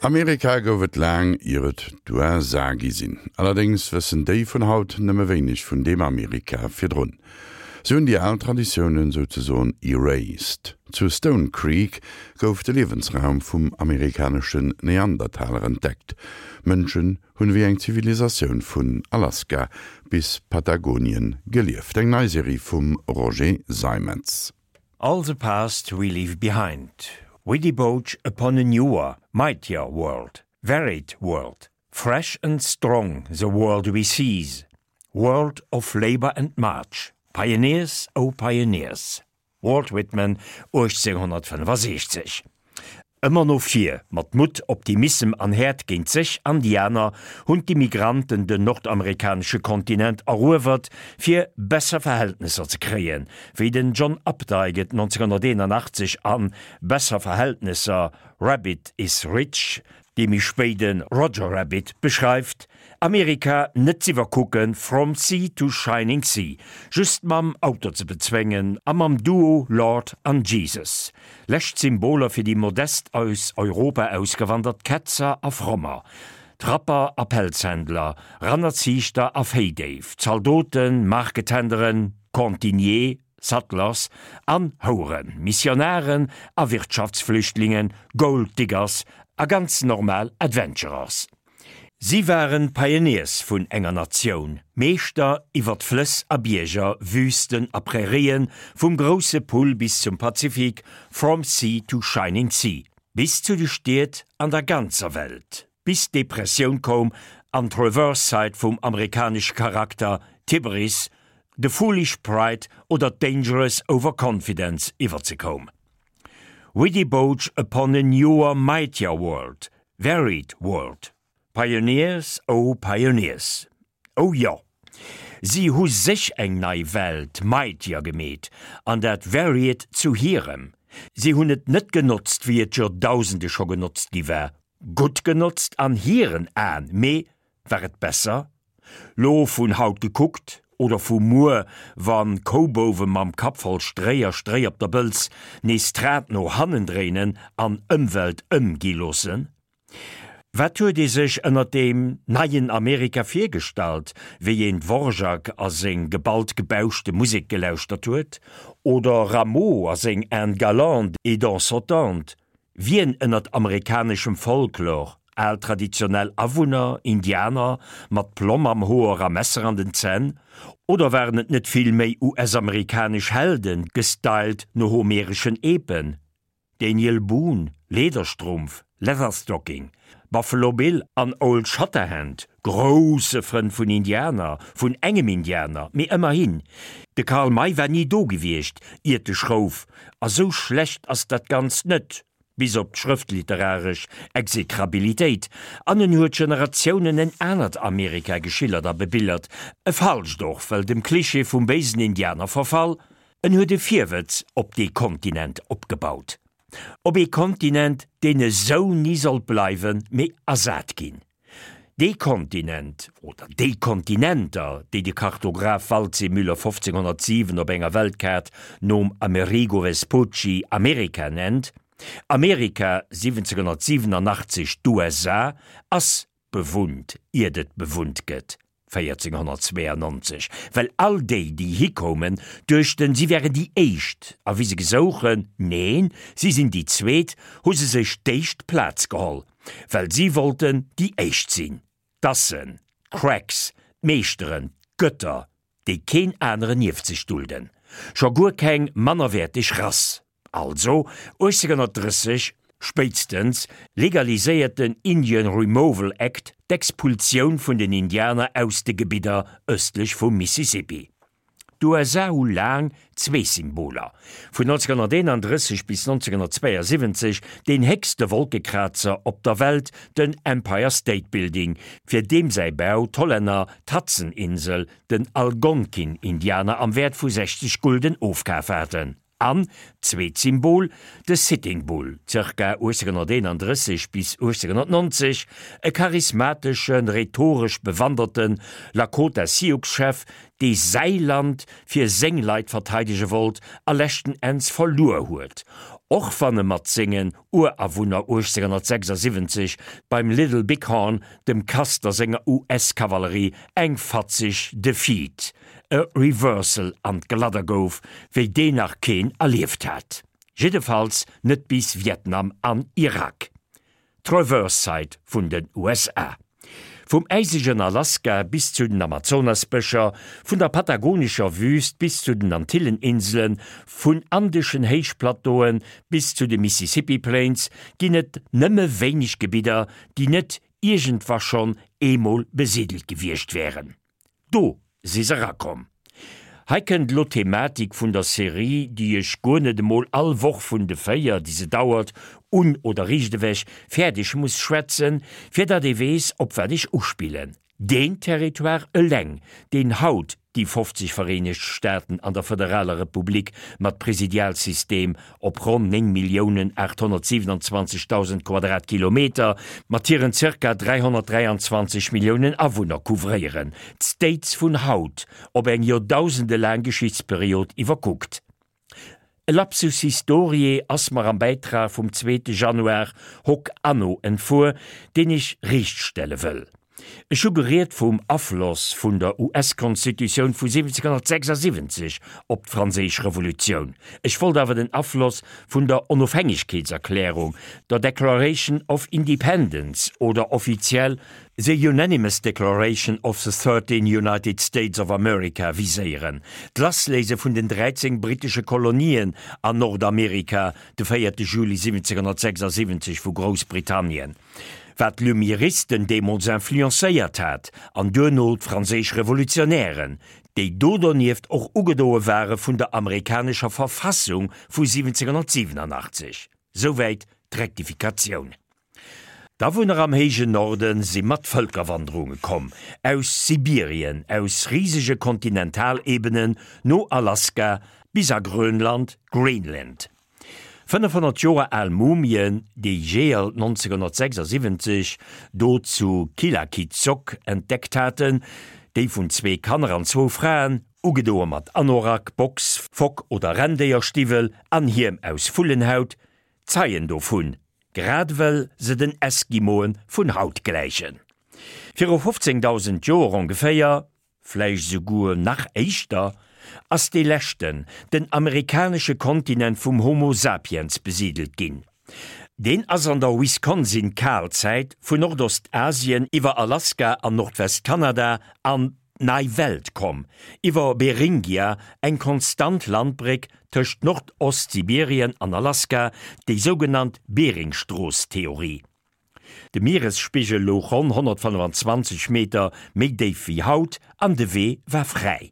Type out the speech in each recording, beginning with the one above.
Amerika gouf et laang ier et d'USA gi sinn. Allerdéngs wëssen déi vun haut nëmme wéineg vun deem Amerika virdrun. Se hunn déi al Traditiounen souzesoen erased. Zu Stone Creek gouf de Liewensraum vum amerikaneschen Neandertaler entdeckt. Mënschen hunn ewéi eng Zivilisatioun vun Alaska bis Patagonien gelieft. Eng nei Serie vum Roger Seimetz. All the past we leave behind, we debauch upon a newer, mightier world, varied world, fresh and strong the world we seize, world of labour and march, pioneers, oh pioneers. Walt Whitman, 1865. Ëmmer no vir, mat Mutt, Optimissem an Häert géint sech an déi aner, hunn d'Immigranten den nordamerikanesche Kontinent eruewert, fir besser Verhältnesser ze kréien, wéi den John Updike et 1981 an Besser Verhältnesser, Rabbit is Rich, dee méi spéide Roger Rabbit, beschreift, Amerika net z'iwwerkucken, from sea to shining sea, just mam Auto ze bezwéngen a mam Duo Lord an Jesus, lescht Symboler fir déi modest aus Europa ausgewandert Ketzer a Frommer, Trapper a Pelzhändler, Rannerziichter a Véidéif, Zaldoten, Marketenderen, Cantinier, Settlers an Houeren, Missionaren a Wirtschaftsflüchtlingen, Gold Diggers a ganz normal Adventurers. Si waren d'Pioneers vun enger Natioun, Meeschter iwwert Flëss a Bierger, Wüsten a Prärien, vum grousse Pull bis zum Pazifik, from sea to shining sea, bis zu de Stied an der ganzer Welt, bis d'Depressioun koum an d'Reverse Side vum amerikanesche Charakter, d'Hybris, de foolish pride oder d'dangerous overconfidence iwwerzekoum. We debauch upon a newer, mightier world, varied world. Pioneers, oh pioneers. Oh jo, si hu sech eng nei Welt, mightier, gemeet, an dat varied zu hirem. Si hunn et net genotzt, wéi et Joerdausende scho genotzt gi war, gutt genotzt an hiren Aen, mee war et besser? Lo vun haut gekuckt, oder vu muer, wann Koubouwe mam Kapp voll Stréi a Stréi op der Bëlz nees d'Rad no hannen dréinen an Ëmwelt ëm gi loossen? Wat huet ee sech ënnert deem neien Amerika virgestallt, wéi een Dvorak a seng geballt gebauschte Musek gelauschtert huet, oder Rameau a seng Indes galantes et dents sautantes? Wien ënnert amerikaneschem Folklor, al traditionell Awunner, Indianer, mat Plomm am Hoer a Messer an den Zänn, oder waren et net vill méi US-amerikanesch Helden, gestylt no homereschen Epen, Daniel Boone, Lederstrumpf, Leatherstocking, Buffalo Bill an Old Shatterhand, grousse Frënn vun Indianer, vun engem Indianer, mee ëmmerhin. De Karl May war ni do gewiescht, iert de Schrouf, a sou schlecht ass dat Ganzt net, bis op d'schrëftliteraresch Exekrabilitéit, an en huet Generatiounen en anert Amerika geschillert a bebillert, e falscht och, well dem Klischee vum béisen Indianer verfall, en huet e Virwëtz op dee Kontinent opgebaut. Op ee Kontinent, deen esou ni sollt bleiwen, mee ersat ginn. Dee Kontinent, oder déi Kontinenter, déi de Kartograph Waldseemüller 1507 op enger Weltkaart nom Amerigo Vespucci Amerika nennt, Amerika 1787 d'USA, ass bewunnt, iert et bewunnt gëtt. 1492, well all déi, déi hikoumen, duechten, si wären déi éischt, a wéi se gesouchen, neen, si sinn déi zweet, hu se sech d'éischt Plaz geholl, well si wollten déi éischt sinn, d'Assen, d'Cracks, d'Meeschteren, d'Götter, déi keen aneren nieft sech dulden, scho guer keng mannerwäerteg Rass. Also 1830 spéitstens legaliséiert den Indian Removal Act d'Expulsioun vun den Indianer aus de Gebidder ëstlech vum Mississippi. D'USA hu laang zwee Symboler, vun 1931 bis 1972 deen héchste Wolkekrazer op der Welt, den Empire State Building, fir deem säi Bau d'Hollänner d'Hudson-Insel den Algonkin-Indianer am Wäert vu 60 Gulden ofkaf haten. An, zweet Symbol, de Sitting Bull, zirka 1831 bis 1890, e charismateschen, rhetoresch bewanderte Lakota-Sioux-Chef, dee säi Land fir seng Leit verteidege wollt a leschten Enns verluer huet. Och wann e mat sengen Urawunner 1876 beim Little Bighorn dem Custer senger US-Kavallerie eng fatzeg Defeat, e Reversal an d'Gladder gouf, wéi deen nach keen erlieft hat. Jiddefalls net bis Vietnam an Irak. D'Reverse-Side vun den USA. Vum äisegen Alaska bis zu den Amazonasbëscher, vun der patagonescher Wüüst bis zu den Antilleninselen, vun andeschen Héichplateaue bis zu de Mississippi Plains ginn et nëmme wéineg Gebidder, déi net iergendwa schonn eemol besidelt gewiescht wären. Do si se erakomm. Hei kënnt elo d'Thematik vun der Serie, déi ech guer net emol all Woch vun de 4, déi se dauert, un oder riicht ewech fäerdeg muss schwätzen, fir datt ee weess, op wat ech uspillen. Deen Territoire eleng, deen haut déi 50 Vereenegt Staaten an der Fëderaler Republik mat Presidialsystem op ronn 9.827.000 Quadratkilometer mat hiren zirka 323 Milliounen Awunner couvréieren, d'States vun haut, op eng joerdausendelaang Geschichtsperiod iwwerkuckt. E Lapsus historiae ass mer am Bäitrag vum zweete Januar hoc anno entfuer, deen ech riichtstelle wëll. Ech hu geriet vum Afloss vun der US-Konstitutioun vu 1776 op d'Franséisch Revolutioun. Ech wollt awer den Afloss vun der Onofhängegkeetserklärung, der Declaration of Independence oder offiziell The Unanimous Declaration of the 13 United States of America viséieren, d'Lassléise vun den 13 brittesche Kolonien an Nordamerika de 4 Juli 1776 vu Groussbritannien. Wat d'Lumiéristen deemools influencéiert hat, an duerno d'franséisch Revolutionären, déi do donieft och ugedoe ware vun der amerikanescher Verfassung vu 1787. Souwäit d'Rektifikatioun. D'Awunner am héijen Norde si mat Vëlkerwanderunge komm, aus Sibirien, aus risege Kontinentalebenen no Alaska bis a Grönland, Greenland. 500 Joer al Mumien, déi Jeeër 1976 do zu Qilakitsoq entdeckt haten, déi vun zwee Kanner an zwou Fraen, ugedoe mat Anorak, Box, Fock oder Renndéierstiwwel an Hiem aus Vullenhaut, zeien dovun, grad ewell se den Eskimoe vun haut gläichen. Viru 15.000 Joer ongeféier vläicht esouguer nach éischter, ass dee leschten, den amerikanesche Kontinent vum Homo sapiens besidelt ginn. Deen ass an der Wisconsin-Kalzäit vun Nordostasien iwwer Alaska an Nordwest-Kanada an d'Nei Welt komm, iwwer Beringia, eng konstant Landbréck tëscht Nordostsibirien an Alaska, déi sougenannt Beringstrooss-Theorie. De Mieresspigel louch ronn 125 Meter méi déif wéi haut an de Wee war fräi.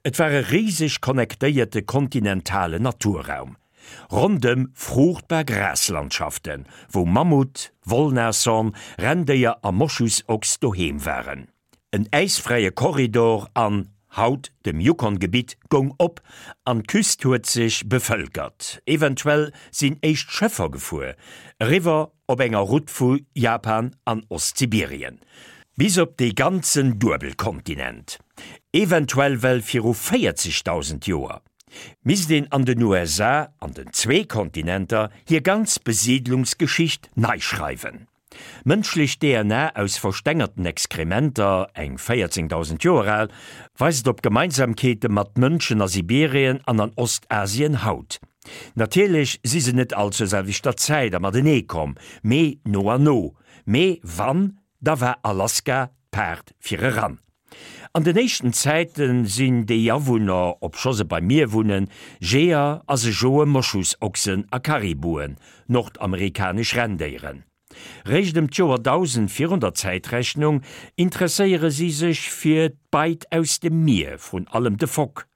Et war e riseg connectéierte kontinentalen Naturraum. Rondëm fruuchtbar Graslandschaften, wou Mammut, Wollnashorn, Renndéier a Moschusochs doheem waren. En äisfräie Korridor an, haut, dem Yukon-Gebitt goung op an d'Küst huet sech bevëlkert. Eventuell sinn éischt Schëffer gefuer, eriwwer op enger Route vu Japan an Ostsibirien bis op dee ganzen Duebelkontinent. Eventuell well viru 40.000 Joer misst een an den USA, an den zwee Kontinenter, hir ganz Besiidlungsgeschicht nei schreiwen. Mënschlech DNA aus verstengerten Exkrementer, eng 14.000 Joer al, weist op Gemeinsamkeete mat Mënschen a Sibirien an an Ostasien haut. Natierlech si se net all zur selwechter Zäit a matenee komm, mee no an no. Mee wann, da war Alaska d'Paart fir eran. An den éischten Zäite sinn déi Awunner, obscho se beim Mier wunnen, Jeeër a se joe Moschusochsen a Karibuen, nordamerikanesch Renndéieren. Réischt ëm d'Joer 1000 virun der Zäitrechnung interesséiere si sech fir d'Beit aus dem Mier, vrun allem de Fock.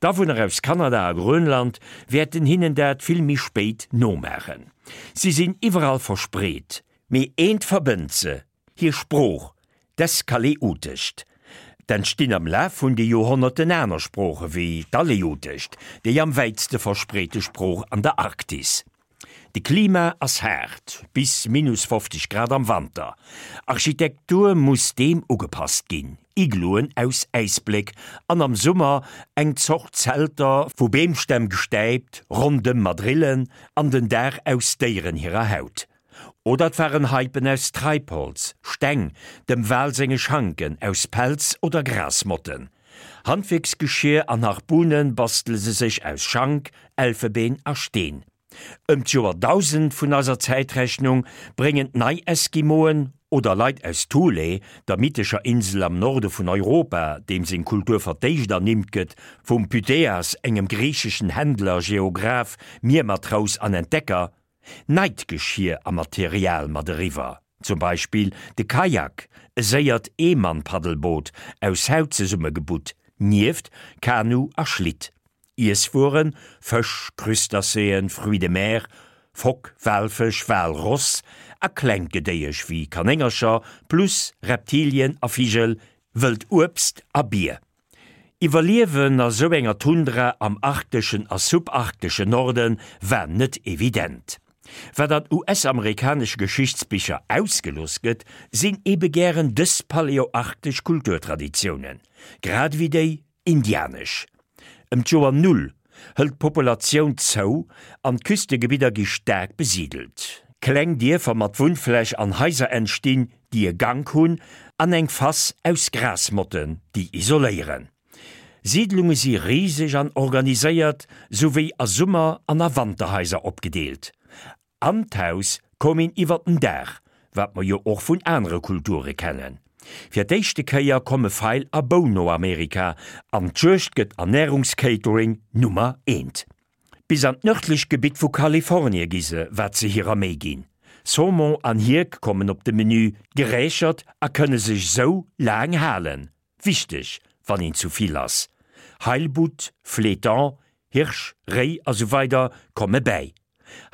D'Awunner aus Kanada a Grönland wäerten hinnen dat vill méi spéit nomaachen. Si sinn iwwerall verspreet, mee eent verbënnt se, Hir Sprooch, d'Eskaleutescht. D'entstinn am Laf vun de Joerhonnerten aner Sprooche wéi d'Aleutescht, déi am wäitste verspreete Sprooch an der Arktis. De Klima ass haart, bis minus 50 Grad am Wanter. Architektur muss deem ugepasst ginn, Igloen aus Äisbléck an am Summer eng Zort Zelter, vu Beemstämm gestäipt, rondëm mat Rillen an den Daach aus Déieren hirer Haut. Oder et waren Haipen aus Treibholz, Steng, dem Wal senge Schanken, aus Pelz oder Grasmotten. Handwierksgeschier an Harpune bastele se sech aus Schank, Elfebeen a Steen. Ëm d'Joer 1000 vun eiser Zäitrechnung bréngen d'Nei-Eskimoen, oder Leit aus Thule, der mythescher Insel am Norde vun Europa, deem seng Kultur fir d'éischt ernimmt gëtt vum Pytheas, engem griicheschen Händler, Geograph, Miermatrous an Entdecker, Neit Geschier a Material mat eriwwer, zum Beispill de Kajak, e séiert Eemann-Paddelboot aus Haut zesummegebutt, nieft Kanu a Schlitt. Iesswueren, Fësch, Crustacéen, Fruits de mer, Fock, Walfësch, Walross a klengt Gedéiesch wéi Kanéngercher, plus Reptilien a Vigel, wëllt Uebst a Bier. Iwwerliewen a sou enger Tundra am arkteschen a subarkteschen Norde war net evident. Wat an US-amerikanesche Geschichtsbicher ausgelooss gëtt, sinn ebe gären dës paleoarktesch Kulturtraditiounen, grad ewéi déi indianesch. Ëm d'Joer Null hëlt d'Populatioun zou an d'Küstegebidder gi staark besidelt. Kleng Dierfer mat Wunnfläch an Haiser entstinn, déi e Gank hunn an eng Fass aus Grasmotten, déi isoléieren. Siidlunge si riseg an organiséiert, souwéi a Summer an a Wanterhaiser opgedeelt. An d'Haus koum een iwwer den Daach, wat mer jo och vun anere Kulture kennen. Fir d'éischte Kéier komme Feil a Bou no Amerika an d'Juegd gëtt Ernärungscatering Nummer eent. Bis an d'nördlech Gebitt vu Kalifornie gi se, wat se hirer Méi ginn. Saumon an Hierk kommen op de Menü, gerächert a kënne sech sou laang halen. Wichteg, wann een zu vill ass. Heilbutt, Flétan, Hirsch, Réi a sou weider komme bäi.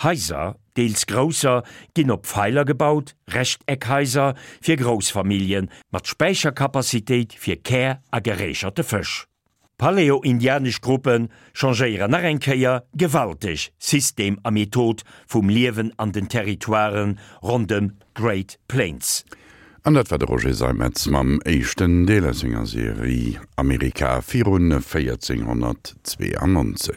Haiser, deels grousser, ginn op Feiler gebaut, Rechteckhaiser fir grouss Familljen, mat Späichercapacitéit fir Kär a gerächerte Fësch. Paleo-indianesch Gruppe changéieren nach eng Kéier gewalteg System a Method vum Liewen an den Territoiren rondëm d'Great Plains. An dat war de Roger Seimetz mam éischten Deel aus senger Serie Amerika virun 1492.